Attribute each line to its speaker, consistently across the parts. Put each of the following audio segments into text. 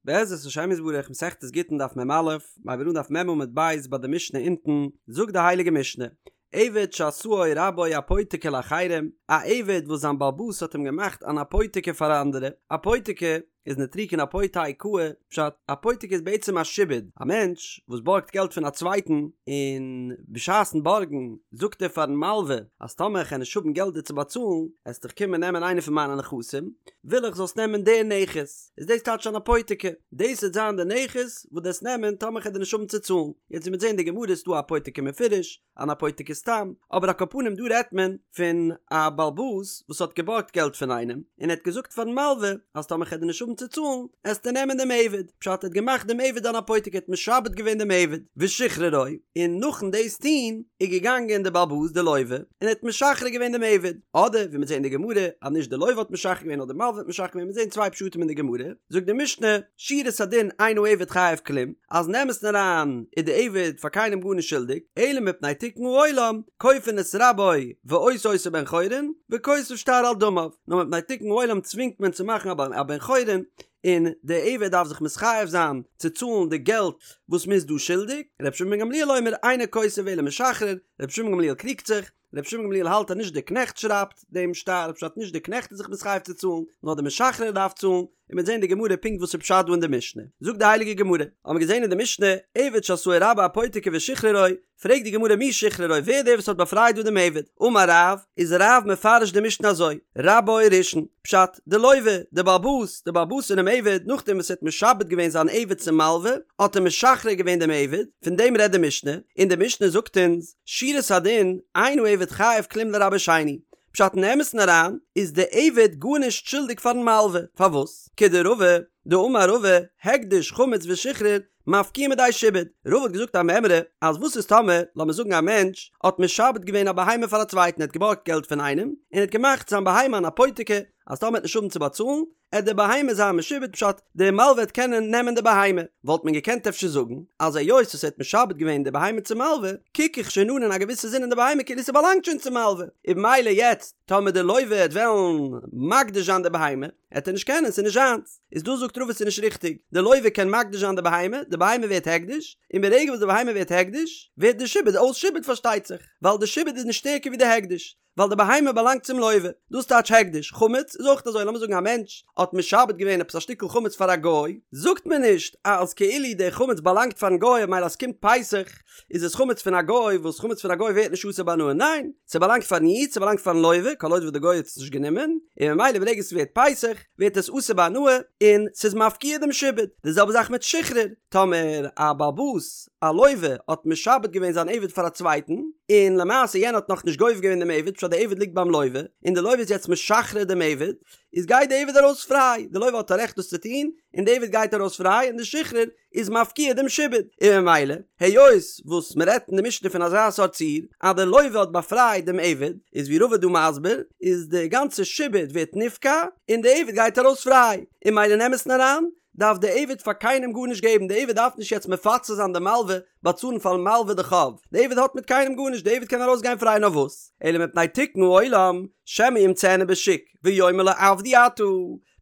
Speaker 1: בעזרת השם יתברך מסכת גיטין דף מ"א, מ'הייבט אן דף מ' עמוד ב' ביי די משנה אונטן, זאגט די הייליגע משנה, עבד שעשאו רבו אפותיקי לאחרים, א עבד וואס זיין בעל הבית האט אים געמאכט אן אפותיקי פאר אנדערע, אפותיקי איז נוטריקון אפותי קאי, פשט, אפותיקי איז בעצם א שעבוד, א מענטש וואס בארגט געלט פון א צווייטן, און בשעת'ן בארגן זאגט ער פארן מלווה אז טאמער איך וועל נישט האבן געלט דיר צו באצאלן, עסט דיך קומען נעמען איינע פון מיינע נכסים, וויל איך זאלסט נעמען די נכס. איז דאס טייטש אן אפותיקי, דאס וועט זיין די נכס וואס דו וועסט נעמען טאמער כ'וועל דיר נישט האבן צו צאלן, יעצט ווי מ'וועט זען אין די גמרא איז דא א אפותיקי מפורש, אן אפותיקי סתם, אבער על כל פנים דא רעדט מען פון א בעל הבית וואס האט געבארגט געלט פון איינעם, און ער האט געזאגט פארן מלווה אז טאמער כ'וועל דיר נישט האבן צו צאלן, עסטו נעמען דעם עבד, פשט ער האט געמאכט דעם עבד אן אפותיקי, ער האט משעבד געווען דעם עבד, ושחררו, און נאכן דאס טון איז געגאנגען דער בעל הבית דער לווה, און ער האט משחרר געווען דעם עבד, אדער ווי מ'וועט זען אין די גמרא אז נישט די לווה האט משחרר געווען נאר די מלווה האט משחרר געווען, מ'וועט זען צוויי פשטים אין די גמרא, זאגט די משנה, שורת הדין אין העבד חייב כלום, אז אין אמת'ן אריין איז די עבד פאר קיינעם גארנישט שולדיג, אלא מפני תיקון העולם, כופין את רבו ועושה אותו בן חורין, וכותב שטר על דמיו, נאר מפני תיקון העולם צווינגט מען צו מאכן א בן חורין, און די עבד דארף זיך מתחייב זיין צו צאלן די געלט וואס מ'איז דא שולדיג, ר' שמעון בן גמליאל אומר אינו כותב אלא משחרר, רבי שמעון גמליאל קריגט זיך, רבי שמעון גמליאל האלט אז נישט דער קנעכט שרייבט דעם שטר, פשט נישט דער קנעכט איז זיך מתחייב צו צאלן, נאר דער משחרר דארף צאלן, און מ'וועט זען אין די גמרא פונקט וואס איז פשט דא אין די משנה. זאגט די הייליגע גמרא, האבן מיר געזען אין די משנה, עבד שעשאו רבו אפותיקי ושחררו, פרעגט די גמרא מי שחררו, ווער איז דער וואס האט באפרייט דא דעם עבד? אמר רב, איז רב מפרש די משנה אזוי, רבו ראשון, פשט, די לווה, די בעל הבית, די בעל הבית פונעם עבד, נאכדעם וואס ער האט משעבד געווען זיין עבד צום מלווה, האט ער משחרר געווען דעם עבד, פון דעם רעדט די משנה, און די משנה זאגט אונז, שורת הדין, אין העבד חייב כלום לרבו שני, פשט אין אמת'ן אריין, איז די עבד גארנישט שולדיג פארן מלווה, פארוואס? כדרבא, דאמר רבא, הקדש, חמץ ושחרור, מפקיעין מידי שעבוד, רבא האט געזאגט א מימרא, אז וואס איז טאמער, לאמיר זאגן א מענטש, האט משעבד געווען א בהמה פאר א צווייטן, ער האט געבארגט געלט פון איינעם, און ער האט געמאכט זיין בהמה אן אפותיקי, אז טאמער ער וועט נישט האבן צו באצאלן, עט די בהמה זיין משועבד פשט די מלווה וועט קענען נעמען די בהמה, וואלט מען געקענט אפשר זאגן אז היות וואס ער האט משעבד געווען די בהמה צום מלווה, קוק איך שוין אן אין א געוויסע זין אין די בהמה כאילו ס'באלאנגט שוין צום מלווה, און במילא יעצט טאמער די לווה וועט וועלן מקדיש זיין די בהמה, עט ער נישט קענען ס'איז נישט זיינס, איז דא זאגט רבא ס'איז נישט ריכטיג, די לווה קען מקדיש זיין די בהמה, די בהמה ווערט הקדש, און ברגע וואס די בהמה ווערט הקדש, ווערט די שעבוד אויס שעבוד פארשטייט זיך, ווייל די שעבוד איז נישט שטערקער ווי די הקדש. ווייל די בהמה באלאנגט צום לווה, דאס טייטש הקדש, חמץ איז אויך אזוי, לאמיר זאגן א מענטש האט משעבד געווען עפעס א שטיקל חמץ פאר א גוי, זאגט מען נישט אז כאילו די חמץ באלאנגט פארן גוי ממילא אז ס'קומט פסח איז עס חמץ פון א גוי, וואס חמץ פון א גוי ווערט נישט אסור בהנאה, ניין, ס'באלאנגט פארן איד, ס'באלאנגט פארן לווה, כל עוד וואס די גוי האט עס נישט גענומען, און ממילא ברגע ס'ווערט פסח ווערט עס אסור בהנאה און ס'איז מפקיע דעם שעבוד, די זעלבע זאך מיט שחרור, טאמער א בעל הבית א לווה האט משעבד געווען זיין עבד פאר א צווייטן, און למעשה יענער האט נאכנישט גובה געווען דעם עבד, פשט די עבד ליגט ביים לווה, און די לווה איז יעצט משחרר דעם עבד, איז גייט די עבד ארויס פריי, די לווה האט א רעכט דאס צו טון, און די עבד גייט ארויס פריי, און די שחרור איז מפקיע דעם שעבוד, און ממילא, היות וואס מען רעדט אין די משנה פון אזא סארט ציור, אז די לווה האט באפרייט דעם עבד, איז ווי רבא דא מסביר, איז די גאנצע שעבוד ווערט נפקע, און די עבד גייט ארויס פריי, און ממילא אין אמת'ן אריין, דארף די עבד פאר קיינעם גארנישט געבן, די עבד דארף נישט יעצט מפצה זיין די מלווה, באצאלן פארן מלווה די חוב, די עבד האט מיט קיינעם גארנישט, די עבד קען ארויס גיין פריי נאר וואס, אלא מפני תיקון העולם, שמא ימצאנו בשוק, ויאמר לו עבדי אתה,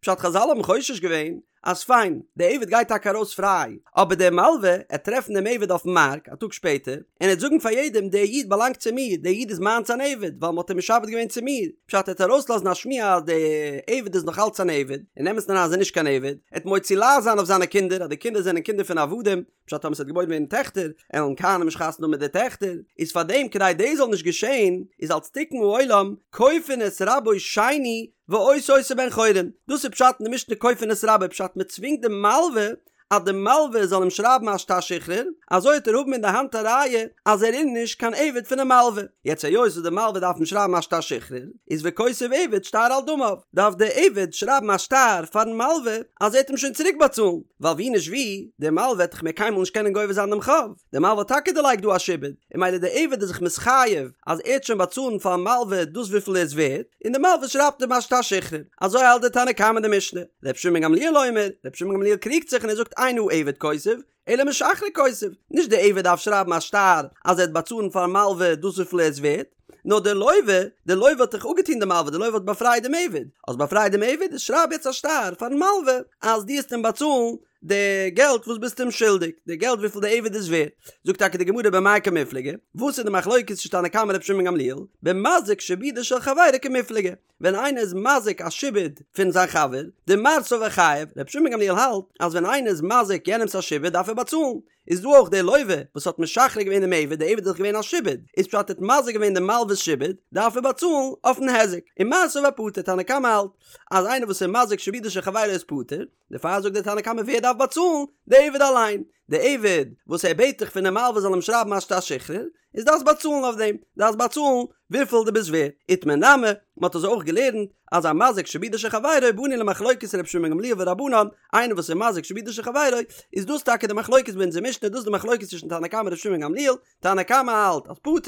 Speaker 1: פשט חזל האבן חושש געווען, אז פיין, די עבד גייט טאקע ארויס פריי, אבער דער מלווה, עט טרעפן דעם עבד אויפן מארק, א טאג שפעטער, און עט זאגן פאר יעדעם, דער איד באלאנגט צו מיר, דער איד איז מיינס אן עבד, ווייל מ'האט אים משעבד געווען צו מיר. פשט ער וועט ארויסלאזן א שמועה אז די עבד איז נאך אלץ אן עבד, אין אמת'ן אריין איז ער נישט קיין עבד, ער וועט מוציא לעז זיין אויף זיינע קינדער אז די קינדער זענען קינדער פון עבדים, פשט טאמער ס'וועט געבוירן ווערן טעכטער, עלן כהנים נישט חתונה האבן מיט די טעכטער, איז פאר דעם כדי דאס זאל נישט געשען, איז אלס תיקון העולם, כופין את רבו שני ועושה אותו בן חורין, דאס איז פשט אין די משנה כופין את רבו, פשט מ'צווינגט די מלווה אז די מלווה זאל אים שרייבן א שטר שחרור, אזוי וועט ער האבן אין די האנט א ראיה אז ער איז נישט קיין עבד פונעם מלווה. יעצט היות וואס די מלווה דארף אים שרייבן א שטר שחרור, איז וכותב עבד שטר על דמיו, דארף די עבד שרייבן א שטר פארן מלווה אז ער וועט אים שוין צוריק באצאלן, ווייל ווי נישט ווי, די מלווה וועט דאך מער קיינמאל נישט קענען גובה זיין דעם חוב, די מלווה האט טאקע דערלייגט דא א שעבוד, און ממילא די עבד איז זיך מתחייב אז ער וועט שוין באצאלן פארן מלווה דאס וויפיל ער איז ווערט, און די מלווה שרייבט אים א שטר שחרור. אזוי האלט די תנא קמא אין די משנה. ר' שמעון בן גמליאל אומר, ר' שמעון בן גמליאל קריגט זיך און ער זאגט אין העבד כותב, אלא משחרר כותב, נישט די עבד דארף שרייבן א שטר אז ער וועט באצאלן פארן מלווה דאס וויפיל ער איז ווערט, נאר די לווה, די לווה האט דאך אפגעטון די מלווה, די לווה האט באפרייט דעם עבד, האסט באפרייט דעם עבד, איז שרייב יעצט א שטר פארן מלווה אז דו וועסט אים באצאלן. די געלט וואס ביסט אים שולדיג, די געלט וויפיל די עבד איז ווערט. זאגט טאקע די גמרא במאי קמיפלגי, וואס איז די מחלוקת צווישן תנא קמא און רבי שמעון גמליאל, במזיק שעבודו של חברו קמיפלגי, ווען איינער איז מזיק א שעבוד פון זיין חבר, דמר סבר חייב, רבי שמעון גמליאל האלט אז ווען איינער איז מזיק יענעמס א שעבוד דארף ער באצאלן, איז דא אויך דער לוה וואס האט משחרר געווען דעם עבד, דער עבד איז דאך געווען א שעבוד, איז פשט ער האט מזיק געווען דעם מלווה'ס שעבוד, דארף ער באצאלן אויפן היזק, און מר סבר פטור, תנא קמא האלט אז איינער וואס איז מזיק שעבודו של חברו איז פטור, דערפאר זאגט דער תנא קמא ווער דארף באצאלן? דער עבד אליין, דער עבד וואס ער בעט דאך פונעם מלווה זאל אים שרייבן א שטר שחרור, איז דארפסט באצאלן אויף דעם, דארפסט באצאלן וויפיל דו ביסט ווערט. איתמר נמי, מען האט אזוי אויך געלערנט אז המזיק שעבודו של חברו באנו למחלוקת ר' שמעון גמליאל ורבנן, איינער וואס איז מזיק שעבודו של חברו, איז דאס טאקע די מחלוקת ביי אונזער משנה, דאס איז די מחלוקת צווישן תנא קמא און ר' שמעון גמליאל, תנא קמא האלט אז פטור,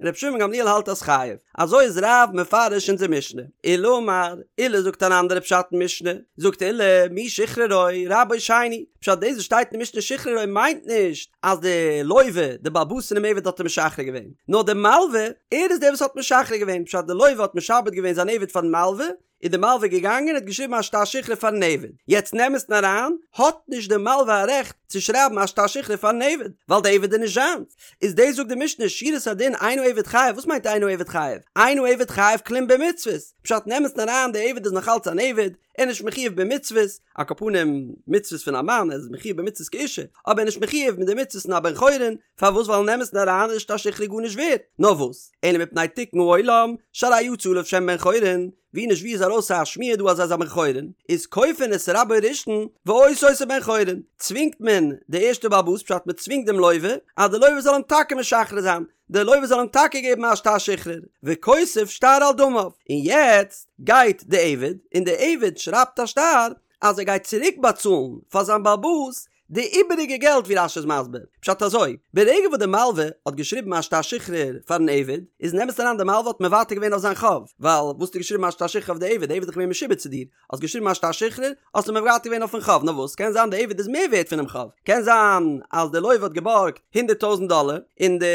Speaker 1: ר' שמעון גמליאל האלט אז חייב. אזוי איז רב מפרש אונזער משנה. עולא אמר, עולא זאגט אן אנדערע פשט אין משנה, זאגט עולא, מי שחררו, רבו שני, פשט דאס וואס שטייט אין משנה שחררו מיינט נישט אז די לוה, די בעל הבית פונעם עבד האט אים משחרר געווען, נאר די מלווה, ער איז דער וואס האט משחרר געווען, פשט די לוה האט משעבד געווען זיין עבד פארן מלווה, איז די מלווה געגאנגען און האט געשריבן א שטר שחרור פארן עבד, יעצט אין אמת'ן אריין האט נישט די מלווה א רעכט צו שרייבן א שטר שחרור פארן עבד, ווייל די עבד איז נישט זיינס, איז דאס זאגט די משנה שורת הדין אין העבד חייב, וואס מיינט אין העבד חייב? אין העבד חייב כלום במצוות, פשט אין אמת'ן אריין די עבד איז נאך אלץ אן עבד, ער איז נישט מחויב במצוות, על כל פנים מצוות פון א מאן, ער איז מחויב במצוות כאישה, אבער ער איז נישט מחויב מיט די מצוות פון א בן חורין, פארוואס ווייל אין אמת'ן אריין איז שטר שחרור גארנישט ווערט, נאר וואס, אלא מפני תיקון העולם, שהרי יצא עליו שם בן חורין, ווי נישט ווי איז ארויס א שמועה דא אז ער איז א בן חורין, איז כופין את רבו ראשון ועושה אותו בן חורין, צווינגט מען די ערשטע בעל הבית פשט מען צווינגט דעם לוה אז די לוה זאל אים טאקע משחרר זיין, די לוה זאל אים טאקע געבן א שטר שחרור, וכותב שטר על דמיו, און יעצט גייט די עבד און די עבד שרייבט א שטר אז ער גייט צוריק באצאלן פאר זיין בעל הבית די איבעריגע געלט ווי רש"י איז מסביר, פשט אזוי, ברגע וואס די מלווה האט געשריבן א שטר שחרור פארן עבד, איז אין אמת'ן אריין די מלווה האט מוותר געווען אויף זיין חוב, ווייל וואס האסטו געשריבן א שטר שחרור אויף די עבד, די עבד איז דאך געווען משועבד צו דיר, האסט געשריבן א שטר שחרור, האסטו מוותר געווען אויפן חוב, נאר וואס, קען זיין די עבד איז מער ווערט פונעם חוב, קען זיין אז די לוה האט געבארגט הונדרעט טויזנט דאלער, און די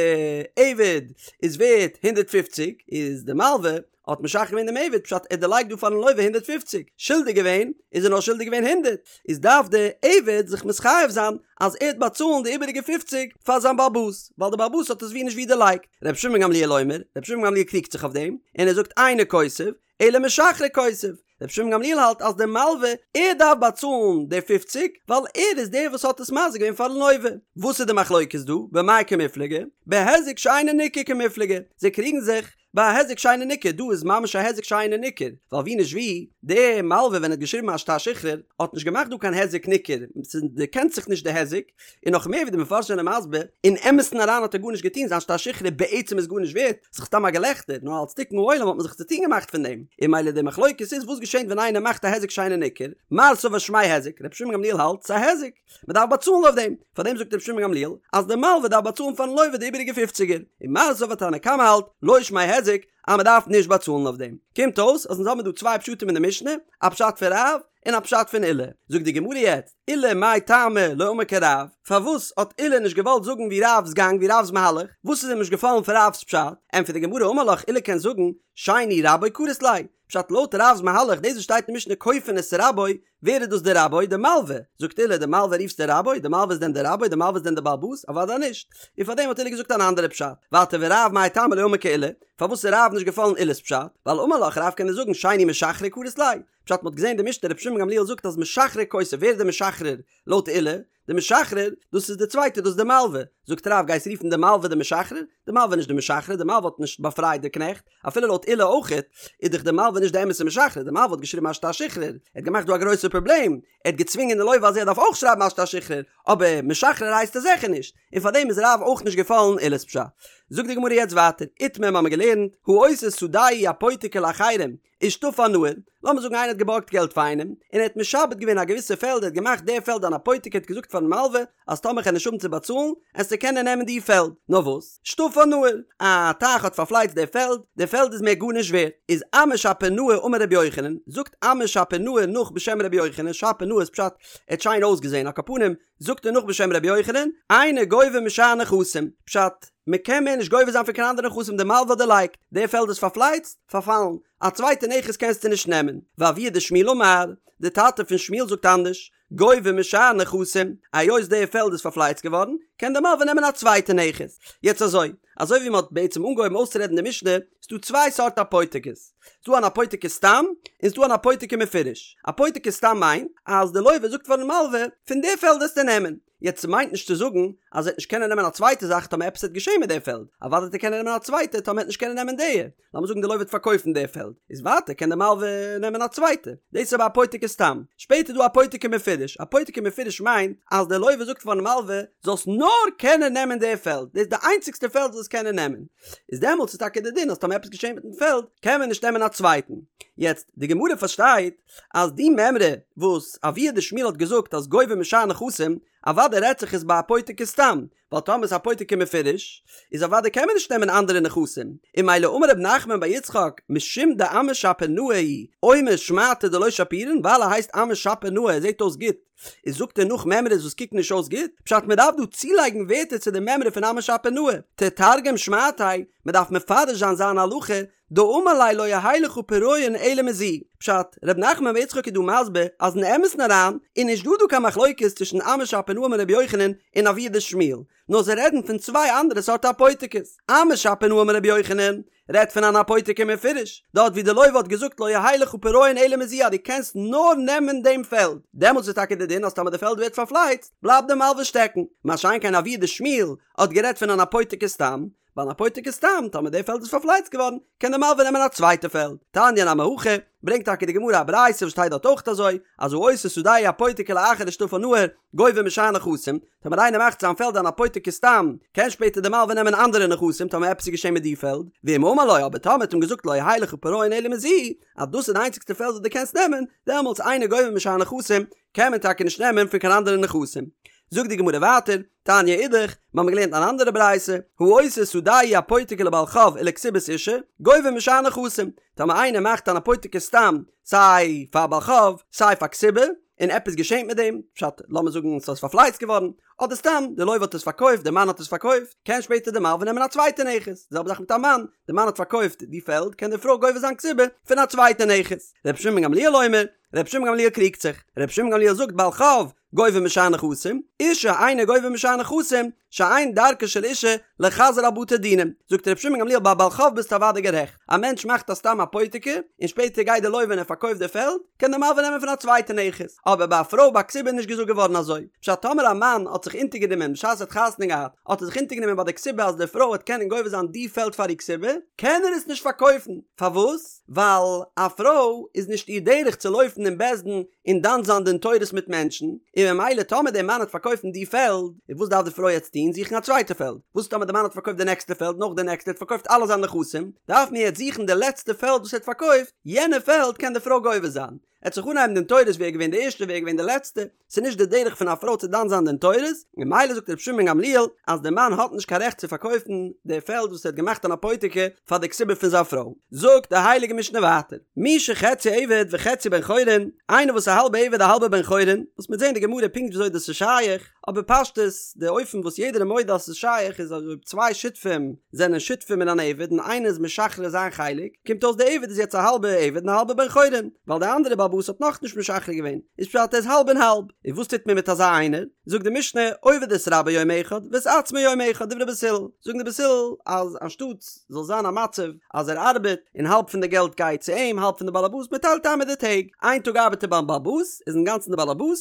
Speaker 1: עבד איז ווערט הונדרעט פופציג, איז די מלווה האט משחרר געווען דעם עבד, פשט ער דערלייגט דא פארן לוה 150, שולדיג געווען איז ער נאר שולדיג געווען הונדרעט, איז דארף דער עבד זיך מתחייב זיין אז ער וועט באצאלן די איבעריגע פופציג פאר זיין בעל הבית, ווייל דער בעל הבית האט עס ווי נישט ווי דערלייגט. רבי שמעון גמליאל אומר, רבי שמעון גמליאל קריגט זיך אויף דעם, און ער זאגט אינו כותב, אלא משחרר כותב. רבי שמעון גמליאל האלט אז דער מלווה, ער דארף באצאלן די פופציג, ווייל ער איז דער וואס האט עס מזיק געווען פארן לוה. וואס איז די מחלוקת דא? במאי קמיפלגי? בהיזק שאינו ניכר קמיפלגי. זיי קריגן זיך ביי א היזק שאינו ניכר, דא איז ממש א היזק שאינו ניכר, ווייל ווי נישט ווי, דער מלווה ווען ער האט געשריבן א שטר שחרור, האט נישט געמאכט דא קיין היזק ניכר, ס'דערקענט זיך נישט די היזק, און נאך מער ווי די מפרשים זענען מסביר, אין אמת'ן אריין האט ער גארנישט געטון, זיין שטר שחרור בעצם איז גארנישט ווערט, ס'איז סתם א געלעכטער, נאר אלס תיקון העולם האט מען זיך צוטון געמאכט פון דעם, און ממילא די מחלוקת איז וואס געשענט ווען איינער מאכט א היזק שאינו ניכר, מר סבר שמיה היזק, רבי שמעון גמליאל האלט ס'איז א היזק. מען דארף באצאלן אויף דעם, פאר דעם זאגט רבי שמעון גמליאל אז דער מלווה דארף באצאלן פארן לוה די איבעריגע פופציגער, און מר סבר תנא קמא האלט לא שמיה היזק אז מען דארף נישט באצאלן אויף דעם. קומט אויס אז אונז האבן דא צוויי פשטים אין די משנה, א פשט פון רב און א פשט פון עולא. זאגט די גמרא יעצט, עולא מאי טעמא לא אמר כרב, פארוואס האט עולא נישט געוואלט זאגן ווי רב'ס גאנג ווי רב'ס מהלך, וואס איז אים נישט געפאלן פון רב'ס פשט? ענטפערט די גמרא אמר לך עולא קען זאגן שני רבו קרית ליה, פשט לויט רב'ס מהלך דאס וואס שטייט אין משנה כופין את רבו, ווער איז דאס דער רבו? די מלווה! זאגט עולא, די מלווה רופסטו רבו? די מלווה איז דען דער רבו? די מלווה איז דען דער בעל הבית? אוודאי נישט! און פארדעם האט עולא געזאגט אן אנדערע פשט. ווייטער ורב מאי טעמא לא אמר כעולא, פארוואס איז רב נישט געפאלן עולא'ס פשט? ווייל אמר לך רב קען ער זאגן שני משחרר קרית ליה. פשט מ'האט געזען די משנה רבי שמעון גמליאל זאגט אז משחרר כותב, ווער איז דער משחרר לויט עולא? די משחרר, דאס איז די צווייטע, דאס איז די מלווה. זאגט רב, גייסט רופן די מלווה די משחרר? די מלווה איז נישט די משחרר, די מלווה האט נישט באפרייט די קנעכט, אפילו לויט עולא אויכעט, איז דאך די מלווה נישט די אמת'ע משחרר, די מלווה האט געשריבן א שטר שחרור, ער האט געמאכט דא א גרויסע פראבלעם, ער האט געצווינגען די לוה אז ער דארף אויך שרייבן א שטר שחרור, אבער משחרר הייסט ער זיכער נישט, און פארדעם איז רב אויך נישט געפאלן עולא'ס פשט. זאגט די גמרא יעצט ווייטער, איתמר האמיר געלערנט, העושה שדהו אפותיקי לאחרים, ושטפה נהר, לאמיר זאגן איינער האט געבארגט געלט פאר איינעם, און ער האט משעבד געווען א געוויסע פעלד, ער האט געמאכט די פעלד אן אפותיקי, ער האט געזאגט פארן מלווה אז טאמער כ'על נישט האבן צו באצאלן, עסטו קענען נעמען די פעלד. נאר וואס? שטפה נהר, א טייך האט פארפלייצט די פעלד, די פעלד איז מער גארנישט ווערט. איז אמי שפיר נאה אמר רבי יוחנן, זאגט אמי שפיר נאה נאך בשם רבי יוחנן, שפיר נאה איז פשט, ער האט שיין אויסגעזען, על כל פנים, זאגט ער נאך בשם רבי יוחנן, אינו גובה משאר נכסים, פשט, מען קען מער נישט גובה זיין פון קיין אנדערע נכסים די מלווה האט דערלייגט, די פעלד איז פארפלייצט, פארפאלן, א צווייטע נכס קענסטו נישט נעמען, ואבוה דשמואל אמר, די טאטע פון שמואל זאגט אנדערש, גובה משאר נכסים, היות די פעלד איז פארפלייצט געווארן, קען די מלווה נעמען א צווייטע נכס. יעצט אזוי, אזוי ווי מען האט בעצם אנגעהויבן אויסצורעדן די משנה, ס'דא צוויי סארט אפותיקות. ס'דא אן אפותיקי סתם, און ס'דא אן אפותיקי מפורש. אפותיקי סתם מיינט, אז די לווה זאגט פארן מלווה, פון די פעלד וועסטו נעמען. יעצט ס'מיינט נישט צו זאגן אז ער וועט נישט קענען נעמען א צווייטע זאך טאמער עפעס וועט געשען מיט די פעלד. אוודאי וועט ער קענען נעמען א צווייטע טאמער ער וועט נישט קענען נעמען די. לאמיר זאגן די לווה וועט פארקויפן די פעלד, איז ווייטער קען די מלווה נעמען א צווייטע. דאס איז אבער אפותיקי סתם. שפעטער איז דא אפותיקי מפורש. אפותיקי מפורש מיינט אז די לווה זאגט פארן מלווה, זאלסט נאר קענען נעמען די פעלד, דאס איז די איינציגסטע פעלד וואס זאלסט קענען נעמען. איז דעמאלטס איז טאקע די דין אז טאמער עפעס געשען מיטן פעלד קען מען נישט נעמען א צווייטן. יעצט, די גמרא פארשטייט אז די מימרא וואס אבוה דשמואל האט געזאגט אז גובה משאר נכסים, אוודאי רעדט זיך עס ביי אפותיקי סתם, ווייל טאמער איז אפותיקי מפורש, איז אוודאי קען מען נישט נעמען אנדערע נכסים, און ממילא אמר רב נחמן בר יצחק משום דאמא שפיר נאה הוא, אומר שמעתא דלא שפירן, ווייל ער הייסט אמא שפיר נאה ער זעט אויס גוט, איז זאגט ער נאך מימרות וואס קוקן נישט אויס גוט, פשט מען דארף דא צולייגן ווערטער צו די מימרא פון אמא שפיר נאה, תתרגם שמעתיה, מען דארף מפרש זיין זיין הלכה, דאמר ליה לא יהא לך פירעון אלא מזו, פשט, ר' נחמן בר יצחק איז דא מסביר אז אין אמת'ן אריין איז נישט דא דא קיין מחלוקת צווישן אמא שפיר נאה אמר רבי יוחנן און אבוה דשמואל, נאר זיי רעדן פון צוויי אנדערע סארט אפותיקות. אמא שפיר נאה אמר רבי יוחנן רעדט פון אן אפותיקי מפורש, דארט ווי די לוה האט געזאגט לא יהא לך פירעון אלא מזו אז דו קענסט נאר נעמען דעם פעלד, דעמאלטס איז טאקע די דין אז טאמער די פעלד ווערט פארפלייצט בלייבט די מלווה שטעקן, מה שאין כן אבוה דשמואל האט גערעדט פון אן אפותיקי סתם, ביי אן אפותיקי סתם, טאמער די פעלד איז פארפלייצט געווארן, קען די מלווה נעמען א צווייטע פעלד. תניא נמי הכי, ברענגט טאקע די גמרא א ברייתא וואס שטייט דארט אויך אזוי, אז העושה שדהו אפותיקי לאחר דשטפה נהר, גובה משאר נכסים, טאמער איינער מאכט זיין פעלד אן אפותיקי סתם, קען שפעטער די מלווה נעמען אנדערע נכסים טאמער עפעס איז געשען מיט די פעלד, ואם אמר לו, אבער טאמער האט אים געזאגט לא יהא לך פירעון אלא מזו, אז דאס איז די איינציגסטע פעלד וואס דו קענסט נעמען, דעמאלטס אינו גובה משאר נכסים, קען מען טאקע נישט נעמען פון קיין אנדערע נכסים. זאגט די גמרא ווייטער, תניא אידך, מיר האבן געלערנט אן אנדערע ברייתא, העושה שדהו אפותיקי לבעל חוב ולכתובת אשה, גובה משאר נכסים, טאמער איינער מאכט אן אפותיקי סתם, סיי פאר בעל חוב, סיי פאר כתובה, און עפעס געשענט מיט דעם, פשט, לאמיר זאגן ס'איז פארפלייצט געווארן, אדער סתם, די לוה האט עס פארקויפט, די מאן האט עס פארקויפט, קען שפעטער די מלווה נעמען א צווייטע נכס, די זעלבע זאך מיט א מאן, די מאן האט פארקויפט די פעלד, קען די פרוי גובה זיין כתובה פון א צווייטע נכס. רבי שמעון בן גמליאל אומר, רבי שמעון גמליאל קריגט זיך, רבי שמעון גמליאל זאגט בעל חוב גובה משאר נכסים, אשה אינו גובה משאר נכסים, שאין דרכה של אשה לחזר על בתי דינים, זאגט רבי שמעון גמליאל ביי בעל חוב ביסטו אוודאי גערעכט, א מענטש מאכט א סתם אפותיקי, און שפעטער גייט די לוה און ער פארקויפט די פעלד, קען די מלווה נעמען פון א צווייטע נכס, אבער ביי א פרוי ביי כתובה איז נישט געזאגט געווארן אזוי, פשט טאמער א מאן האט זיך אונטערגענומען בשעת ער האט חתונה געהאט, האט ער זיך אונטערגענומען ביי די כתובה אז די פרוי וועט קענען גובה זיין די פעלד פאר איר כתובה, קען ער עס נישט פארקויפן, פארוואס? ווייל א פרוי איז נישט איר דרך צו לויפן אין בית דין און דן זיין דין תורות מיט מענטשן, און ממילא טאמער דער מאן האט פארקויפן די פעלד, איז וואס דארף די פרוי יעצט טון? זוכן א צווייטע פעלד. וואס טאמער די מאן האט פארקויפט די נעקסטע פעלד, נאך די נעקסטע, ער האט פארקויפט אלע זיינע נכסים, דארף מען יעצט זוכן די לעצטע פעלד וואס ער האט פארקויפט, יענע פעלד קען די פרוי גובה זיין. עט זיך אנהייבן דין תורות ווער איז געווען די ערשטע ווער איז געווען די לעצטע, ס'איז נישט די דרך פון א פרוי צו דן זיין דין תורות, ממילא זאגט רבי שמעון בן גמליאל אז די מאן האט נישט קיין רעכט צו פארקויפן די פעלד וואס ער האט געמאכט אן אפותיקי פאר די כתובה פון זיין פרוי. זאגט די הייליגע משנה ווייטער, מי שחציו עבד וחציו בן חורין, איינער וואס איז א האלבע עבד א האלבע בן חורין, וואס מ'וועט זען אין די גמרא פונקט וויאזוי דאס איז שייך, אבער פשטות, די אופן וואס יעדער איז מודה אז ס'איז שייך איז אז אויב צוויי שותפים זענען שותפים אין אן עבד און איינער איז משחרר זיין חלק, קומט אויס די עבד איז יעצט א האלבע עבד און א האלבע בן חורין, ווייל די אנדערע בעל הבית האט נאכנישט משחרר געווען, איז פשט ער איז האלב און האלב. און וואס טוט מען מיט אזא איינער? זאגט די משנה, עובד את רבו יום אחד ואת עצמו יום אחד, דברי בית הלל. זאגן די בית הלל אז אנשטאט זאל זיין א מצב אז ער ארבעט און האלב פון די געלט גייט צו אים האלב פון די בעל הבית, מען טיילט איין מיט די טעג, איין טאג ארבעט ער ביים בעל הבית, איז אינגאנצן די בעל הבית,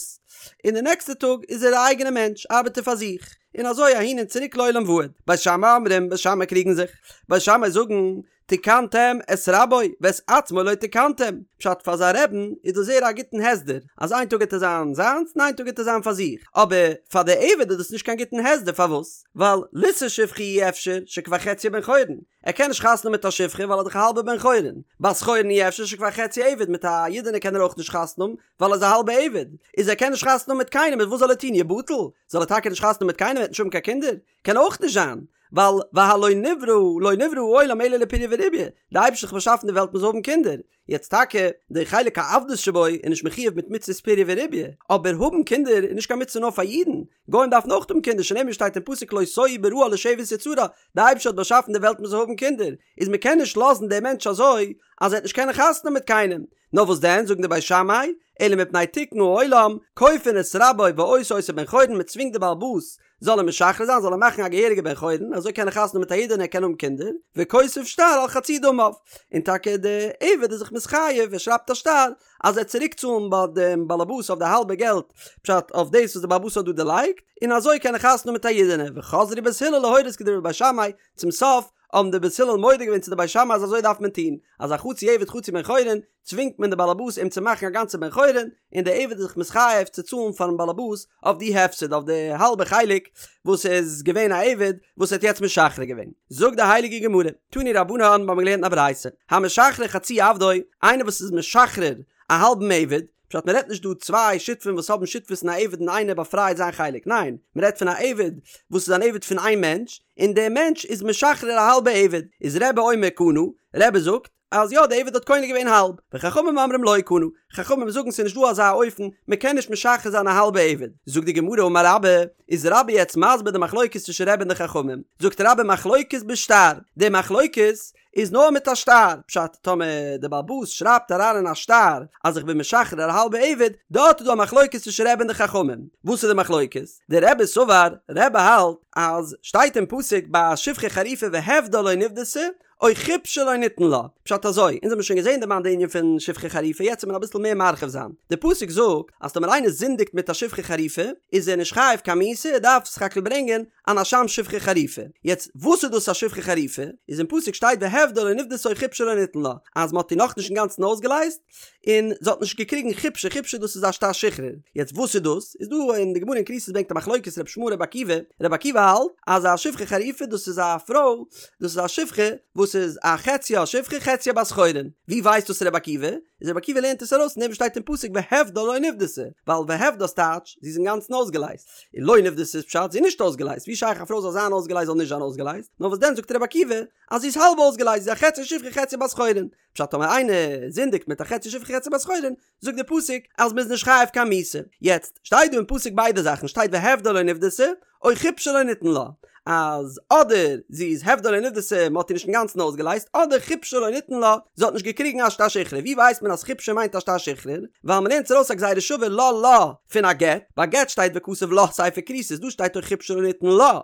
Speaker 1: און די נעקסטע טאג איז ער א אייגענע מענטש, ארבעט ער פאר זיך, און אזוי אהין און צוריק לעולם ועד. בית שמאי אומרים, בית שמאי קריגן זיך, בית שמאי זאגן, תיקנתם את רבו ואת עצמו לא תיקנתם, פשט פאר זיין רעבן איז דאס זייער א גוטן הסדר, אז איין טאג גייט ער זיין זיינס און איין טאג גייט ער זיין פאר זיך, אבער פאר די עבד איז דאס נישט קיין גוטן הסדר, פארוואס? ווייל לישא שפחה אי אפשר שכבר חציו בן חורין, ער קען נישט חתונה האבן מיט א שפחה ווייל ער איז דאך א האלבער בן חורין, בת חורין אי אפשר שכבר חציו עבד מיט א אידענע קען ער אויך נישט חתונה האבן ווייל ער איז א האלבע עבד, איז ער קען נישט חתונה האבן מיט קיינעם איז וואס זאל ער טון יבטל? זאל ער טאקע נישט חתונה האבן מיט קיינעם ער וועט נישט האבן קיין קינדער? קען אויך נישט זיין, ווייל והלא נברא לא נברא העולם אלא לפריה ורביה, די אייבערשטער האט באשאפן די וועלט מען זאל האבן קינדער, יעצט טאקע די חלק העבדות שבו איז נישט מחויב מיט מצוות פריה ורביה, אבער האבן קינדער איז נישט קיין מצוה נאר פאר אידן, גוים דארפן אויך האבן קינדער שנאמר שטייט אין פסוק לא תוהו בראה לשבת יצרה, די אייבערשטער האט באשאפן די וועלט מען זאל האבן קינדער, איז מען קען נישט לאזן דעם מענטש אזוי אז ער וועט נישט קענען חתונה האבן מיט קיינעם, נאר וואס דען זאגן די בית שמאי, אלא מפני תיקון העולם, כופין את רבו ועושה אותו בן חורין, מען צווינגט די בעל הבית זאל אים משחרר זיין, זאל ער מאכן א געהעריגע בן חורין, אזוי קען ער חתונה האבן מיט א אידענע ער קען האבן קינדער, וכותב שטר על חצי דמיו, און טאקע די עבד איז זיך מתחייב, ער שרייבט א שטר אז ער וועט צוריק צאלן ביי דעם באלעבאס אויף די האלבע געלט, פשט אויף דאס וואס די באלעבאס האט דא דערלייגט, און אזוי קען ער חתונה האבן מיט א אידענע, וחזרו בית הלל להורות כדברי בית שמאי, צום סוף האבן די בית הלל מודה געווען צו די בית שמאי אז אזוי דארף מען טון, אז א חצי עבד חצי בן חורין, צווינגט מען די באלעבאס אים צו מאכן א גאנצע בן חורין, און די עבד איז זיך מתחייב צו צאלן פארן באלעבאס אויף די הפסד, אויף די האלבע חלק וואס איז געווען א עבד וואס ער האט יעצט משחרר געווען. זאגט די הייליגע גמרא, תנו רבנן, מיר האבן געלערנט אין א ברייתא, המשחרר חצי עבדו, איינער וואס איז משחרר א האלבן עבד, פשט מען רעדט נישט דא צוויי שותפים וואס האבן שותפות אין א עבד און איינער באפרייט זיין חלק, ניין, מען רעדט פון א עבד וואס איז אן עבד פון איין מענטש, און דער מענטש איז משחרר א האלבע עבד, איז רבי אומר קנה, רבי זאגט, אז יא די עבד האט קונה געווען האלב, וחכמים אומרים לא קנה, חכמים זאגן ס'איז נישט דא אזא אופן, מען קען נישט משחרר זיין א האלבע עבד, זאגט די גמרא אמר רבה, איז רבה יעצט מסביר די מחלוקת צווישן רבי און די חכמים, זאגט רבה מחלוקת בשטר, די מחלוקת איז נאר מיט א שטר, פשט טאמער די בעל הבית שרייבט אריין אין א שטר אז איך בין משחרר א האלבע עבד, דארט איז דא א מחלוקת צווישן רבי און די חכמים, וואס איז די מחלוקת? דרבי סבר, רבי האלט אז שטייט אין פסוק ביי א שפחה חרופה והפדה לא נפדתה, או חפשה לא ניתן לה. פשט אזוי, אונז האבן שוין געזען דערמאנט די ענין פון שפחה חרופה, יעצט וועט מען אביסל מער מרחיב זיין. די פסוק זאגט אז טאמער איינער זינדיגט מיט א שפחה חרופה, איז ער נישט חייב קיין מיתה, ער דארף סך הכל ברענגען אן אשם שפחה חרופה. יעצט, וואס איז דאס א שפחה חרופה? איז אין פסוק שטייט והפדה לא נפדתה או חפשה לא ניתן לה, אז מען האט איר נאכנישט אינגאנצן אויסגעלייזט, און זי האט נישט געקריגן חפשה, חפשה דאס איז א שטר שחרור, יעצט וואס איז דאס? איז דא אין די גמרא אין כריתות ברענגט א מחלוקת ר' ישמעאל ר' עקיבא, ר' עקיבא האלט אז א שפחה חרופה דאס איז א פרוי, דאס איז א שפחה וואס איז א חציה שפחה חציה בת חורין, ווי ווייסט דאס ר' עקיבא? איז ר' עקיבא לערנט עס ארויס פון דעם וואס שטייט אין פסוק והפדה לא נפדתה, ווייל והפדה איז טייטש זי איז אינגאנצן אויסגעלייזט, און לא נפדתה איז פשט זי איז נישט אויסגעלייזט, ווי שייך א פרוי זאל זיין אויסגעלייזט זאל נישט זיין אויסגעלייזט, נאר וואס דען זאגט ר' עקיבא אז זי איז האלב אויסגעלייזט זי איז א חצי שפחה חצי בת חורין, פשט טאמער איינער זינדיגט מיט א חצי שפחה חצי בת חורין, זאגט דער פסוק אז מ'איז נישט חייב קיין מיתה. יעצט, שטייט דא אין פסוק ביידע זאכן, שטייט והפדה לא נפדתה, או חפשה לא ניתן לה, אז אדער זי איז הפדה לא נפדתה, מ'האט איר נישט אינגאנצן אויסגעלייזט, אדער חפשה לא ניתן לה, זי האט נישט געקריגן א שטר שחרור. ווי ווייסט מען אז חפשה מיינט א שטר שחרור? ווייל מ'לערנט עס ארויס א גזירה שווה לה לה פון א גט, ביי גט שטייט וכתב לה ספר כריתות, דא שטייט או חפשה לא ניתן לה.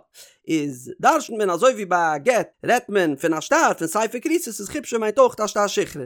Speaker 1: איז דרש'נט מען אזוי ווי ביי א גט רעדט מען פון א שטר פון ספר כריתות איז חפשה מיינט אויך א שטר שחרור.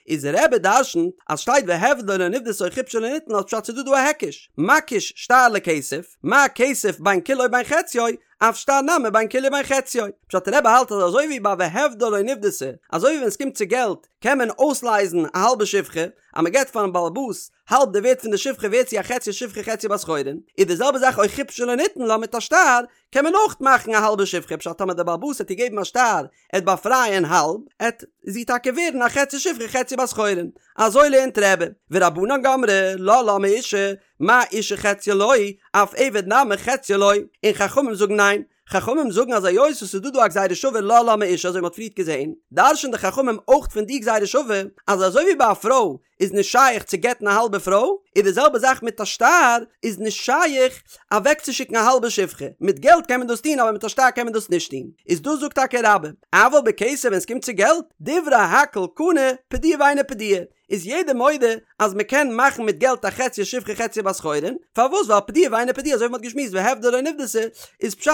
Speaker 1: איז רבי דרש'נט אז שטייט והפדה לא נפדתה או חפשה לא ניתן לה פשט ס'איז דא דא א היקש מקיש שטר לכסף מה כסף בין כולו בין חציו אף שטר נמי בין כולו בין חציו פשט רבי האלט אז אזוי ווי ביי והפדה לא נפדתה אזוי ווי ווען ס'קומט צו געלט קען מען אויסלייזן א האלבע שפחה אז מ'געט פארן בעל הבית האלב די ווערט פון די שפחה ווערט זי א חצי שפחה חצי בת חורין, איז די זעלבע זאך או חפשה לא ניתן לה מיט א שטר קען מען אויך מאכן א האלבע שפחה פשט טאמער די בעל הבית העט איר געבן א שטר עט באפרייען האלב עט זי טאקע ווערן א חצי שפחה חצי בת חורין אזוי לערנט רבי ורבנן גמרי לה לה מאשה מה אשה חציה לא אף עבד נמי חציו לא און חכמים זאגן ניין חכמים זאגן אז היות עס איז דא דא א גזירה שווה לה לה מאשה אזוי ווי מען האט פריערט געזען דרש'ן די חכמים אויך פון די גזירה שווה אז אזוי ווי ביי א פרוי איז נישט שייך צו גט'ן א האלבע פרוי, איז די זעלבע זאך מיט א שטר, איז נישט שייך אוועקצושיקן א האלבע שפחה, מיט געלט קען מען דאס טון אבער מיט א שטר קען מען דאס נישט טון, איז דאס זאגט טאקע רבה, אבל בכסף ווען עס קומט צו געלט, דברי הכל קנה, פדויה ואינה פדויה, איז יעדער מודה אז מען קען מאכן מיט געלט א חציה שפחה חציה בת חורין, פארוואס ווייל פדויה ואינה פדויה אזוי ווי מען האט געשמועסט והפדה לא נפדתה איז פשט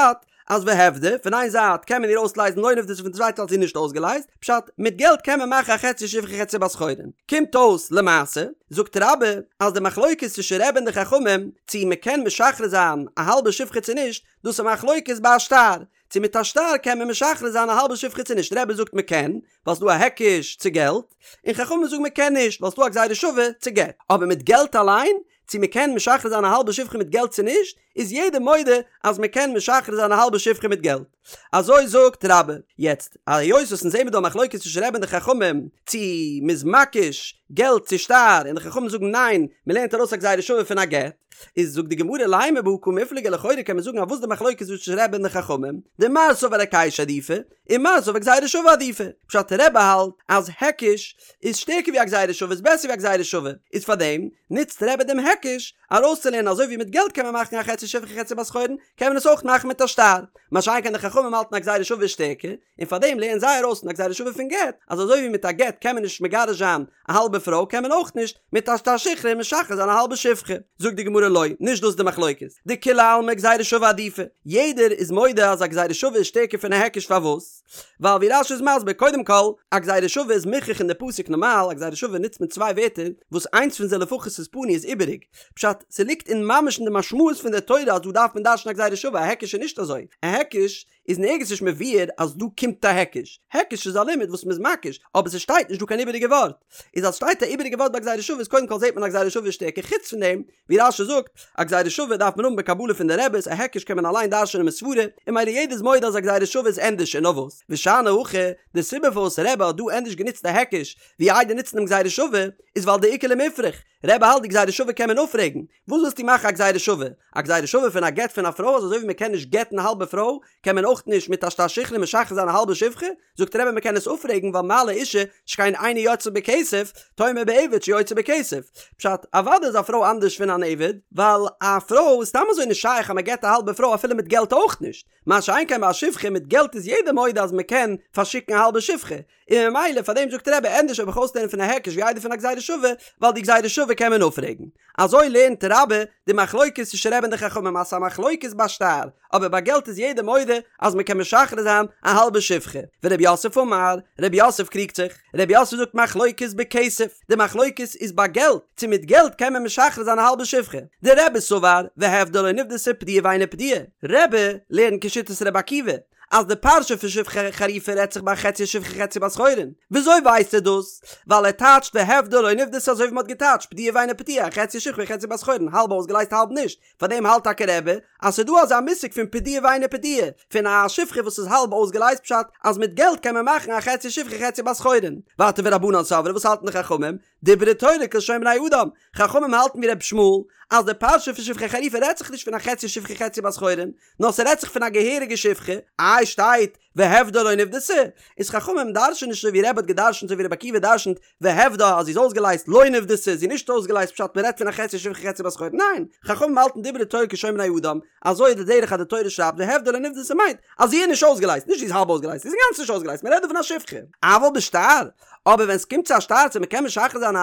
Speaker 1: אז והפדה, פון איין זייט קען מען איר אויסלייזן לא נפדתה פון די צווייטע זייט איז זי נישט אויסגעלייזט, פשט, מיט געלט קען מען מאכן א חצי שפחה חצי בת חורין. קומט אויס למעשה, זאגט רבה, אז די מחלוקת צווישן רבי און די חכמים, צו מען קען משחרר זיין א האלבע שפחה צו נישט, דאס איז מחלוקת ביי א שטר, צו מיט א שטר קען מען משחרר זיין א האלבע שפחה צו נישט, רבי זאגט מען קען, ווייל ס'דא א היקש צו געלט, און חכמים זאגן מען קען נישט, ווייל ס'דא א גזירה שווה צו גט. אבער מיט געלט אליין, צו מען קען משחרר זיין א האלבע שפחה מיט געלט צו נישט, איז יעדער מודה אז מען קען משחרר זיין א האלבע שפחה מיט געלט. אזוי זאגט רבה. יעצט, היות וואס אונז זעמיר דא א מחלוקת צווישן רבי און די חכמים, צו מ'איז מקיש געלט צו שטר, און די חכמים זאגן ניין, מ'לערנט ארויס א גזירה שווה פון א גט, איז זאגט די גמרא לימא בהא קמיפלגי לכאורה קען מען זאגן אז וואס די מחלוקת צווישן רבי און די חכמים, דמר סבר היקשא עדיפא, ומר סבר גזירה שווה עדיפא. פשט רבי האלט אז היקש איז שטערקער ווי א גזירה שווה איז בעסער ווי א גזירה שווה, איז פארדעם נוצט רבי דעם היקש ארויסצולערנען אזוי ווי מיט געלט קען מען מאכן א חצי שפחה חצי בת חורין קען מען עס אויך מאכן מיט א שטר, מה שאין כן די חכמים האלטן א גזירה שווה איז שטערקער, און פארדעם לערנען זיי ארויס פון א גזירה שווה פון גט אז אזוי ווי מיט א גט קען מען נישט מגרש זיין א האלבע. פרוי קען מען אויך נישט מיט א שטר שחרור משחרר זיין א האלבע שפחה. זאגט די גמרא לא, נישט דאס איז די מחלוקת, דכולי עלמא גזירה שווה עדיפא, יעדער איז מודה אז א גזירה שווה איז שטערקער פון א היקש פארוואס? ווייל ווי רש"י איז מסביר קודם כל, א גזירה שווה איז מוכרח אין די פסוק נארמאל א גזירה שווה נוצט מען צוויי ווערטער וואס איינס פון זיי לפחות איז פנוי איז איבעריג, פשט, ס'ליגט אין ממש אין די משמעות פון די תורה אז דא דארף מען דרש'ן א גזירה שווה, א היקש איז נישט אזוי, א היקש איז נערגעץ נישט מבואר אז דא קומט א היקש, היקש איז א לימוד וואס מ'איז מקיש, אבער ס'שטייט נישט דא קיין איבעריגע ווארט, איז אז שטייט א איבעריגע ווארט ביי גזירה שווה איז קודם כל זעט מען א גזירה שווה איז שטערקער, חוץ פון דעם ווי רש"י זאגט, א גזירה שווה דארף מען האבן בקבלה פון די רעבעס, א היקש קען מען אליין דרש'נען מסברא, און ממילא יעדער איז מודה אז א גזירה שווה איז ענדערש און נאר וואס, ושאני הכא, די סיבה פארוואס רבי האט דא ענדערש גענוצט א היקש ווי איידער נוצן דעם גזירה שווה, איז ווייל דאיכא למיפרך, רבי האלט די גזירה שווה קען מען אפפרעגן, וואס ווילסטו מאכן א גזירה שווה? א גזירה שווה פון א גט פון א פרוי אז אזוי ווי מען קען נישט גט'ן א האלבע פרוי, קען מען אויך נישט מיט א שטר שחרור משחרר זיין א האלבע שפחה? זאגט רבי מען קען עס אפפרעגן ווייל מה לאשה שכן אינה יוצאה בכסף, תאמר בעבד שיוצא בכסף. פשט, אוודאי איז א פרוי אנדערש פון אן עבד, ווייל א פרוי איז סתם אזוי נישט שייך אז מען גט א האלבע פרוי אפילו מיט געלט אויך נישט, מה שאין כן ביי א שפחה מיט געלט איז יעדער מודה אז מען קען פארשיקן א האלבע שפחה, און ממילא פאר דעם זאגט רבי ענדערש וועל איך אויסלערנען פון א היקש ווי איידער פון א גזירה שווה, ווייל די גזירה שווה קען מען אפפרעגן. אזוי לערנט רבה די מחלוקת צווישן רבי און די חכמים אז ס'איז א מחלוקת ביי שטר, אבער ביי געלט איז יעדער מודה אז מ'קען משחרר זיין א האלבע שפחה. ורב יוסף אמר, רב יוסף קריגט זיך, רב יוסף זאגט מחלוקת בכסף, די מחלוקת איז ביי געלט, צו מיט געלט קען מען משחרר זיין א האלבע שפחה. דרבי סבר, והפדה לא נפדתה פדויה ואינה פדויה. רבי לערנט כשיטת רבי עקיבא, אז די פרשה פון שפחה חרופה רעדט זיך ביי חצי שפחה חצי בת חורין. וויאזוי ווייסט ער דאס? ווייל ער טייטשט והפדה לא נפדתה אזוי ווי מ'האט געטייטשט פדויה ואינה פדויה חצי שפחה חצי בת חורין האלב אויסגעלייזט האלב נישט. פארדעם האלט טאקע רבי אז ס'איז דא אזא מושג פון פדויה ואינה פדויה פון א שפחה וואס איז האלב אויסגעלייזט פשט אז מיט געלט קען מען מאכן א חצי שפחה חצי בת חורין. ווייטער ורבנן סברי וואס האלטן די חכמים? דברה תורה כלשון בני אדם, חכמים האלטן ווי ר' ישמעאל אז די פרשה פון שפחה חרופה רעדט זיך נישט פון א חצי שפחה חצי בת חורין, נאר ס'רעדט זיך פון א געהעריגע שפחה, איי שטייט והפדה לא נפדתה, איז חכמים דרש'ן נישט אזוי ווי רבי האט געדרש'נט אזוי ווי רבי עקיבא דרש'נט והפדה אז זי איז אויסגעלייזט לא נפדתה זי איז נישט אויסגעלייזט פשט מ'רעדט פון א חצי שפחה חצי בת חורין, ניין, חכמים האלטן דברה תורה כלשון בני אדם, אזוי איז די דרך אז די תורה שרייבט והפדה לא נפדתה מיינט אז זי איז נישט אויסגעלייזט, נישט זי איז האלב אויסגעלייזט, זי איז אינגאנצן נישט אויסגעלייזט, מ'רעדט דא פון א שפחה. אבל בשטר, אבער ווען ס'קומט צו א שטר צו מ'קען משחרר זיין א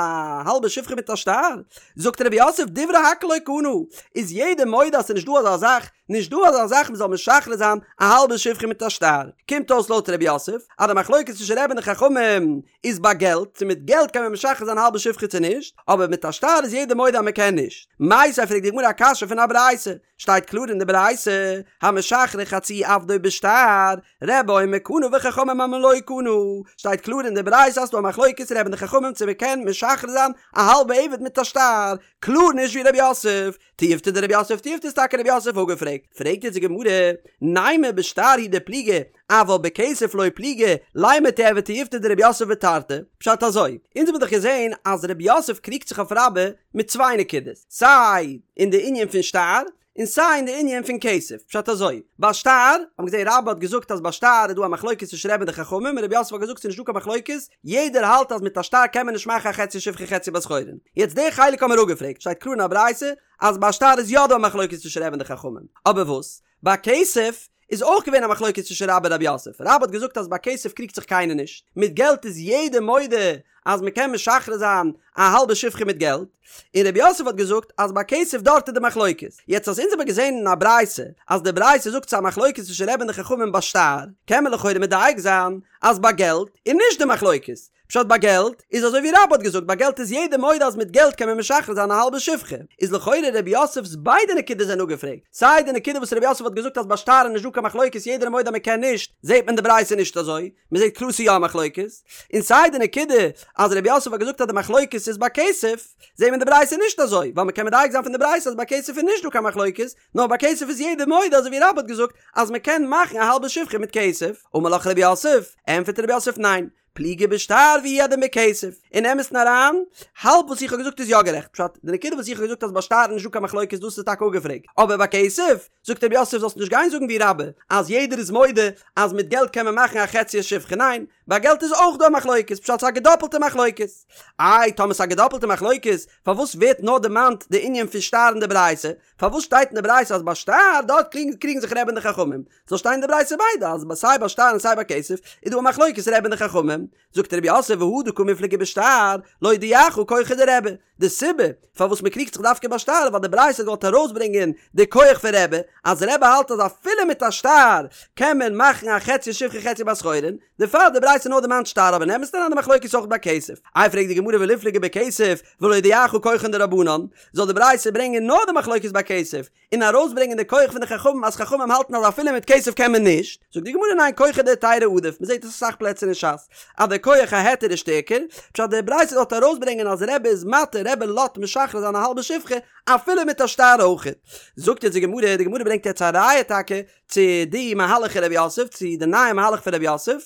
Speaker 1: האלבע שפחה מיט א שטר, זאגט רב יוסף דברי הכל לא קנה, איז יעדער מודה אז ס'נישט דא אזא זאך, נישט דא אזא זאך מ'זאל משחרר זיין א האלבע שפחה מיט א שטר. קומט אויס לויט רב יוסף אז די מחלוקת צווישן רבי און די חכמים איז ביי געלט, צו מיט געלט קען מען משחרר זיין א האלבע שפחה צו נישט, אבער מיט א שטר איז יעדער מודה אז מ'קען נישט. מיתיבי פרעגט די גמרא א קשיא פון א ברייתא, שטייט קלאר אין די ברייתא, המשחרר חצי עבדו בשטר, רבי אומר קנה וחכמים אומרים לא קנה, שטייט קלאר אין די ברייתא אז ס'דא א מחלוקת רבי און די חכמים צו מ'קען משחרר זיין א האלבע עבד מיט א שטר, קלאר נישט ווי ר' יוסף, תיובתא דר' יוסף תיובתא איז טאקע ר' יוסף אפגעפרעגט, פרעגט יעצט די גמרא, נימא בשטר הוא דפליגי, אבל בכסף לא פליגי, לימא תיהוי תיובתא דר' יוסף בתרתי, פשט אזוי, אונז האבן דאך געזען אז ר' יוסף קריגט זיך אויף רבה מיט צוויי נקודות, סיי אין די ענין פון שטר, און סיי אין די ענין פון כסף, פשט אזוי, ביי שטר, האבן מיר געזען רבה האט געזאגט אז ביי שטר איז דא א מחלוקת צווישן רבי און די חכמים, און ר' יוסף האט געזאגט ס'איז נישט דא קיין מחלוקת, יעדער האלט אז מיט א שטר קען מען נישט מאכן א חצי שפחה חצי בת חורין. יעצט די חלק האבן מיר אפגעפרעגט, שטייט קלאר אין א ברייתא אז ביי שטר איז יא דא א מחלוקת צווישן רבי און די חכמים, אבער וואס? ביי כסף איז אויך געווען א מחלוקת צווישן רבה און רב יוסף, רבה האט געזאגט אז ביי כסף קריגט זיך קיינער נישט, מיט געלט איז יעדער מודה אז מען קען משחרר זיין א האלבע שפחה מיט געלט, און רב יוסף האט געזאגט אז ביי כסף דארט איז די מחלוקת, יעצט אז אונז האבן געזען אין א ברייתא אז די ברייתא זאגט ס'איז א מחלוקת צווישן רבי און די חכמים ביי שטר, קען מען לכאורה מדייק זיין אז ביי געלט איז נישט די מחלוקת, פשט ביי געלט איז אזוי ווי רבה האט געזאגט ביי געלט איז יעדער מודה אז מיט געלט קען מען משחרר זיין א האלבע שפחה, איז לכאורה ר' יוסף'ס ביידע נקודות זענען אפגעפרעגט, סיי די נקודה וואס ר' יוסף האט געזאגט אז ביי שטר איז נישט דא קיין מחלוקת יעדער איז מודה אז מען קען נישט, זעט מען די ברייתא נישט אזוי, מען זעט קלאר ס'איז יא א מחלוקת, און סיי די נקודה אז ר' יוסף האט געזאגט אז די מחלוקת איז ביי כסף, זעט מען די ברייתא נישט אזוי, ווייל מען קען מדייק זיין פון די ברייתא אז ביי כסף איז נישט דא קיין מחלוקת, נאר ביי כסף איז יעדער מודה אזוי ווי רבה האט געזאגט אז מען קען מאכן א האלבע שפחה מיט כסף, אמר לך ר' יוסף, ענטפערט ר' יוסף ניין, פליגי בשטר והוא הדין בכסף, אין אמת'ן אריין, האלב וואס איך האב געזאגט איז יא גערעכט, פשט, די נקודה וואס איך האב געזאגט אז ביי שטר איז נישטא קיין מחלוקת דאס איז טאקע אפגעפרעגט, אבער ביי כסף, זאגט רב יוסף זאלסט נישט גיין זאגן ווי רבה, אז יעדער איז מודה אז מיט געלט קען מען מאכן א חצי שפחה, ניין, ביי געלט איז אויך דא א מחלוקת, פשט ס'איז א געדאפלטע מחלוקת. איי, טאמער ס'איז א געדאפלטע מחלוקת, פארוואס ווערט נאר דערמאנט די ענין פון שטר אין די ברייתא? פארוואס שטייט אין די ברייתא אז ביי שטר דארט קריגן זיך רבי און די חכמים? זאל שטיין אין די ברייתא ביידע אז סיי ביי שטר און סיי ביי כסף איז דא א מחלוקת רבי און די חכמים. זאגט רב יוסף והא דקא מיפלגי בשטר, להודיעך כחו דרבי, די סיבה פארוואס מען קריגט זיך דווקא ביי שטר איז ווייל די ברייתא האט געוואלט ארויסברענגען די כח פון רבי, אז רבי האלט אז אפילו מיט א שטר קען מען מאכן א חצי שפחה חצי בת חורין, דערפאר האט די ברייתא נאר דערמאנט שטר אבער אין אמת'ן אריין די מחלוקת איז אויך ביי כסף. איי פרעגט די גמרא וליפלגי בכסף ולהודיעך כחן דרבנן, זאל די ברייתא ברענגען נאר די מחלוקת ביי כסף, און ארויסברענגען די כח פון די חכמים אז חכמים האלטן אז אפילו מיט כסף קען מען נישט, זאגט די גמרא ניין כחא דהיתרא עדיף, מען זעט עס אסאך פלעצער אין ש"ס אז די כח ההיתר איז שטערקער, פשט די ברייתא זאל ארויסברענגען אז רבי איז מתיר רבי לאזט משחרר זיין א האלבע שפחה אפילו מיט א שטר אויכעט. זאגט יעצט די גמרא, די גמרא ברענגט יעצט א ראיה טאקע צו די מהלך פון רב יוסף, צו די נייע מהלך פון רב יוסף,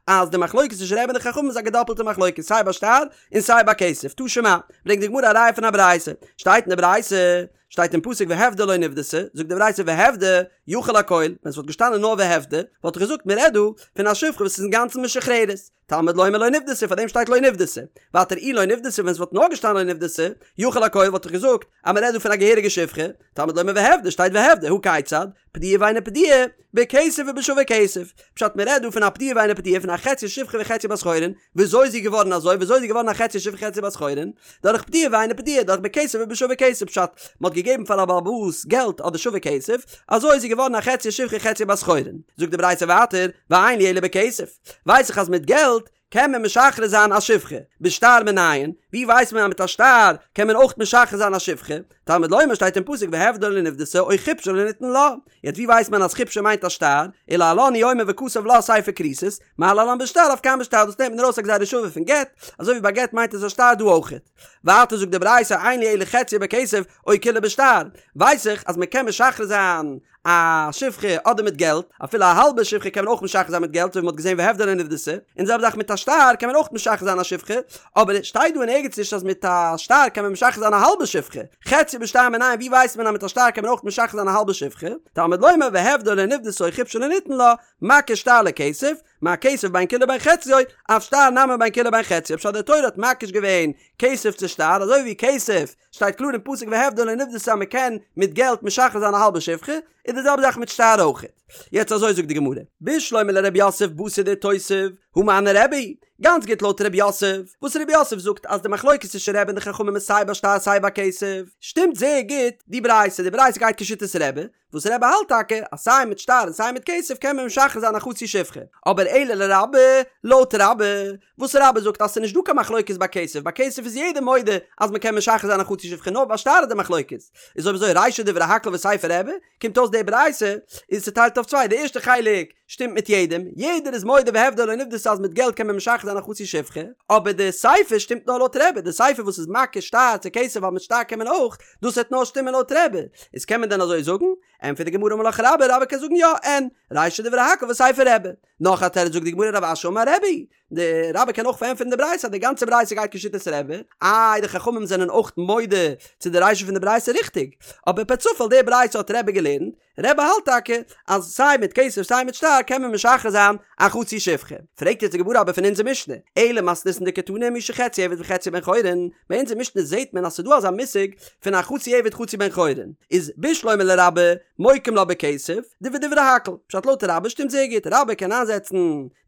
Speaker 1: אז די מחלוקת צווישן רבי און די חכמים איז א געדאפלטע מחלוקת סיי ביי שטר און סיי ביי כסף, תא שמע, ברענגט די גמרא א ראיה פון א ברייתא, שטייט אין די ברייתא, שטייט אין פסוק והפדה לא נפדתה, זאגט די ברייתא והפדה יכול הכל, ווען ס'וואלט געשטאנען נאר והפדה, וואלט איך געזאגט מ'רעדט דא פון א שפחה וואס איז אינגאנצן משוחררת, תלמוד לומר לא נפדתה פאר דעם שטייט לא נפדתה, ווייטער אי לא נפדתה ווען ס'וואלט נאר געשטאנען לא נפדתה, יכול הכל וואלט איך געזאגט אז מ'רעדט דא פון א געהעריגע שפחה, תלמוד לומר והפדה שטייט והפדה, הא כיצד, פדויה ואינה פדויה, בכסף ובשווה כסף, פשט מ'רעדט דא פון א פדויה ואינה פדויה פון א חצי שפחה וחצי בת חורין, וויאזוי איז זי געווארן אזוי? וויאזוי איז זי געווארן א חצי שפחה חצי בת חורין? דורך פדויה ואינה פדויה, דורך בכסף ובשווה כסף, פשט, מ'האט געגעבן פאר א בעל הבית געלט אדער שווה כסף, אזוי איז זי געווארן א חצי שפחה חצי בת חורין. זאגט די ברייתא ווייטער, ואין לי אלא בכסף, ווייס איך אז מיט געלט קען מען משחרר זיין א שפחה, בשטר מנין, ווי ווייסט מען אז מיט א שטר קען מען אויך משחרר זיין א שפחה? תלמוד לומר שטייט אין פסוק והפדה לא נפדתה או חפשה לא נתן לה, יעצט ווי ווייסט מען אז חפשה מיינט א שטר, ולהלן הוא אומר וכתב לה ספר כריתות, מה להלן בשטר אף כאן בשטר דאס נעמט מען ארויס א גזירה שווה פון גט, אזוי ווי ביי גט מיינט עס א שטר דא אויכעט. ווייטער זאגט די ברייתא אין לי אלא חציה בכסף או כולה בשטר, ווייס איך אז מען קען משחרר זיין א שפחה אדער מיט געלט, אפילו א האלבע שפחה קען מען אויך משחרר זיין מיט געלט אזוי ווי מען האט געזען והפדה לא נפדתה, און די זעלבע זאך מיט א שטר קען מען אויך משחרר זיין א שפחה, אבער עס שטייט דא אין ערגעץ נישט אז מיט א שטר קען מען משחרר זיין א האלבע שפחה, חציה בשטר מנין ווי ווייסט מען אז מיט א שטר קען מען אויך משחרר זיין א האלבע שפחה, תלמוד לומר והפדה לא נפדתה או חפשה לא נתן לה, מקיש שטר לכסף, מה כסף בין כולו בין חציו, אף שטר נמי בין כולו בין חציו, פשט די תורה האט מקיש געווען כסף צו שטר, אזוי ווי כסף שטייט קלאר אין פסוק והפדה לא נפדתה אז מען קען מיט געלט משחרר זיין א האלבע שפחה, איז די זעלבע זאך מיט שטר אויכעט. יעצט אזוי זאגט די גמרא, בשלמא לרב יוסף בתר דאיתותב, הא מני רבי, גאנץ גוט לויט רב יוסף, וואס רב יוסף זאגט אז די מחלוקת צווישן רבי און די חכמים איז סיי ביי שטר סיי ביי כסף, שטימט זייער גוט די ברייתא, די ברייתא גייט כשיטת רבי, וואס רבי האלט טאקע אז סיי מיט שטר און סיי מיט כסף קען מען משחרר זיין א חצי שפחה, אבער אלא לרבה, לויט רבה, וואס רבה זאגט אז ס'איז נישט דא קיין מחלוקת ביי כסף, ביי כסף איז יעדער מודה אז מ'קען משחרר זיין א חצי שפחה נאר ביי שטר איז די מחלוקת, איז אויב אזוי רישא דברי הכל וסיפא רבי, קומט אויס די ברייתא איז צוטיילט אויף צוויי, די ערשטע חלק שטימט מיט יעדעם, יעדער איז מודה והפדה לא נפדתה אז מיט געלט קען מען משחרר זיין א חצי שפחה, אבער די סיפא שטימט נאר לויט רבי, די סיפא וואס איז מקיש שטר צו כסף ווייל מיט שטר קען מען אויך, דאס וועט נאר שטימען לויט רבי, איז קען מען דען אזוי זאגן? ענטפערט די גמרא אמר לך רבה, רבה קען זאגן יא, אין, רישא דברי הכל וסיפא רבי. נאך א תירוץ זאגט די גמרא רב אשי אמר רבי, די רבה קען אויך פארענטפערן די ברייתא אז די גאנצע ברייתא גייט כשיטת רבי, איי די חכמים זענען אויך מודה צו די רישא פון די ברייתא ריכטיג, אבער פער צופאל די ברייתא האט רבי געלערנט, רבי האלט טאקע אז סיי מיט כסף סיי מיט שטר קען מען משחרר זיין א חצי שפחה. פרעגט יעצט די גמרא אבער פון אונזער משנה, אלא מתניתין דקתני מי שחציו עבד וחציו בן חורין, ביי אונזער משנה זעהט מען אז ס'דא אזא מושג פון א חצי עבד חצי בן חורין, איז בשלמא לרבה מוקים לה בכסף, דבדברי הכל, פשט לויט רבה שטימט זייער גוט, רבה קען איינזעצן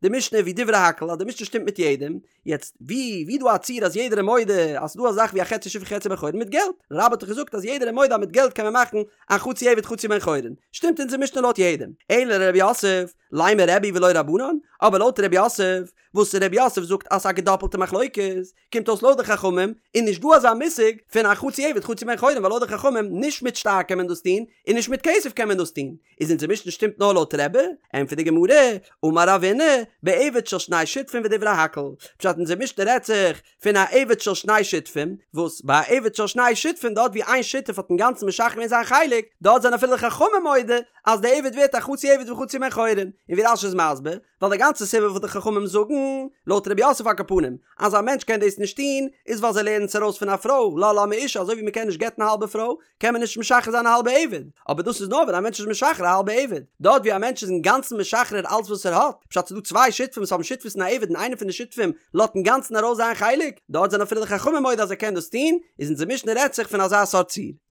Speaker 1: די משנה ווי דברי הכל אז די משנה שטימט מיט יעדעם, יעצט ווי ווי דא א ציור אז יעדער איז מודה אז ס'דא א זאך ווי א חצי שפחה חצי בן חורין מיט געלט, רבה האט דאך געזאגט אז יעדער איז מודה אז מיט געלט קען מען מאכן א חצי עבד חצי בן חורין, שטימט אונזער משנה לויט יעדעם, אלא לרב יוסף, לימא רבי ולא רבנן, אבער לויט רב יוסף, וואס רב יוסף זאגט אז ס'איז א געדאפלטע מחלוקת, קומט אויס לויט די חכמים איז נישט דא אזא מושג פון א חצי עבד חצי בן חורין ווייל לויט די חכמים נישט מיט שטר קען מען דאס טון און נישט מיט כסף קען מען דאס טון, איז אונזער משנה שטימט נאר לויט רבי? ענטפערט די גמרא, אמר רבינא, בעבד של שני שותפים ודברי הכל, פשט אונזער משנה רעדט זיך פון א עבד של שני שותפים, וואס ביי א עבד של שני שותפים דארט ווי איין שותף האט אינגאנצן משחרר געווען זיין חלק, דארט זענען אפילו די חכמים מודה אז די עבד ווערט א חצי עבד וחצי בן חורין, און ווי רש"י איז מסביר, ווייל די גאנצע סיבה וואס די חכמים זאגן, לויט רב יוסף על כל פנים, אז א מענטש קען דאס נישט טון, איז ווייל זיי לערנען עס ארויס פון א פרוי, לה לה מאשה, אזוי ווי מען קען נישט גט'ן א האלבע פרוי, קען מען נישט משחרר זיין א האלבע עבד, אבער דאס איז נאר ווען א מענטש איז משחרר א האלבע עבד, דארט ווי א מענטש איז אינגאנצן משחרר אלץ וואס ער האט, פשט ס'איז דא צוויי שותפים וואס האבן שותפות אין א עבד און איינער פון די שותפים לאזט אינגאנצן ארויס זיין חלק, דארט זענען אפילו די חכמים מודה אז ער קען דאס טון, איז אונזער משנה רעדט זיך פון אזא סארט ציור.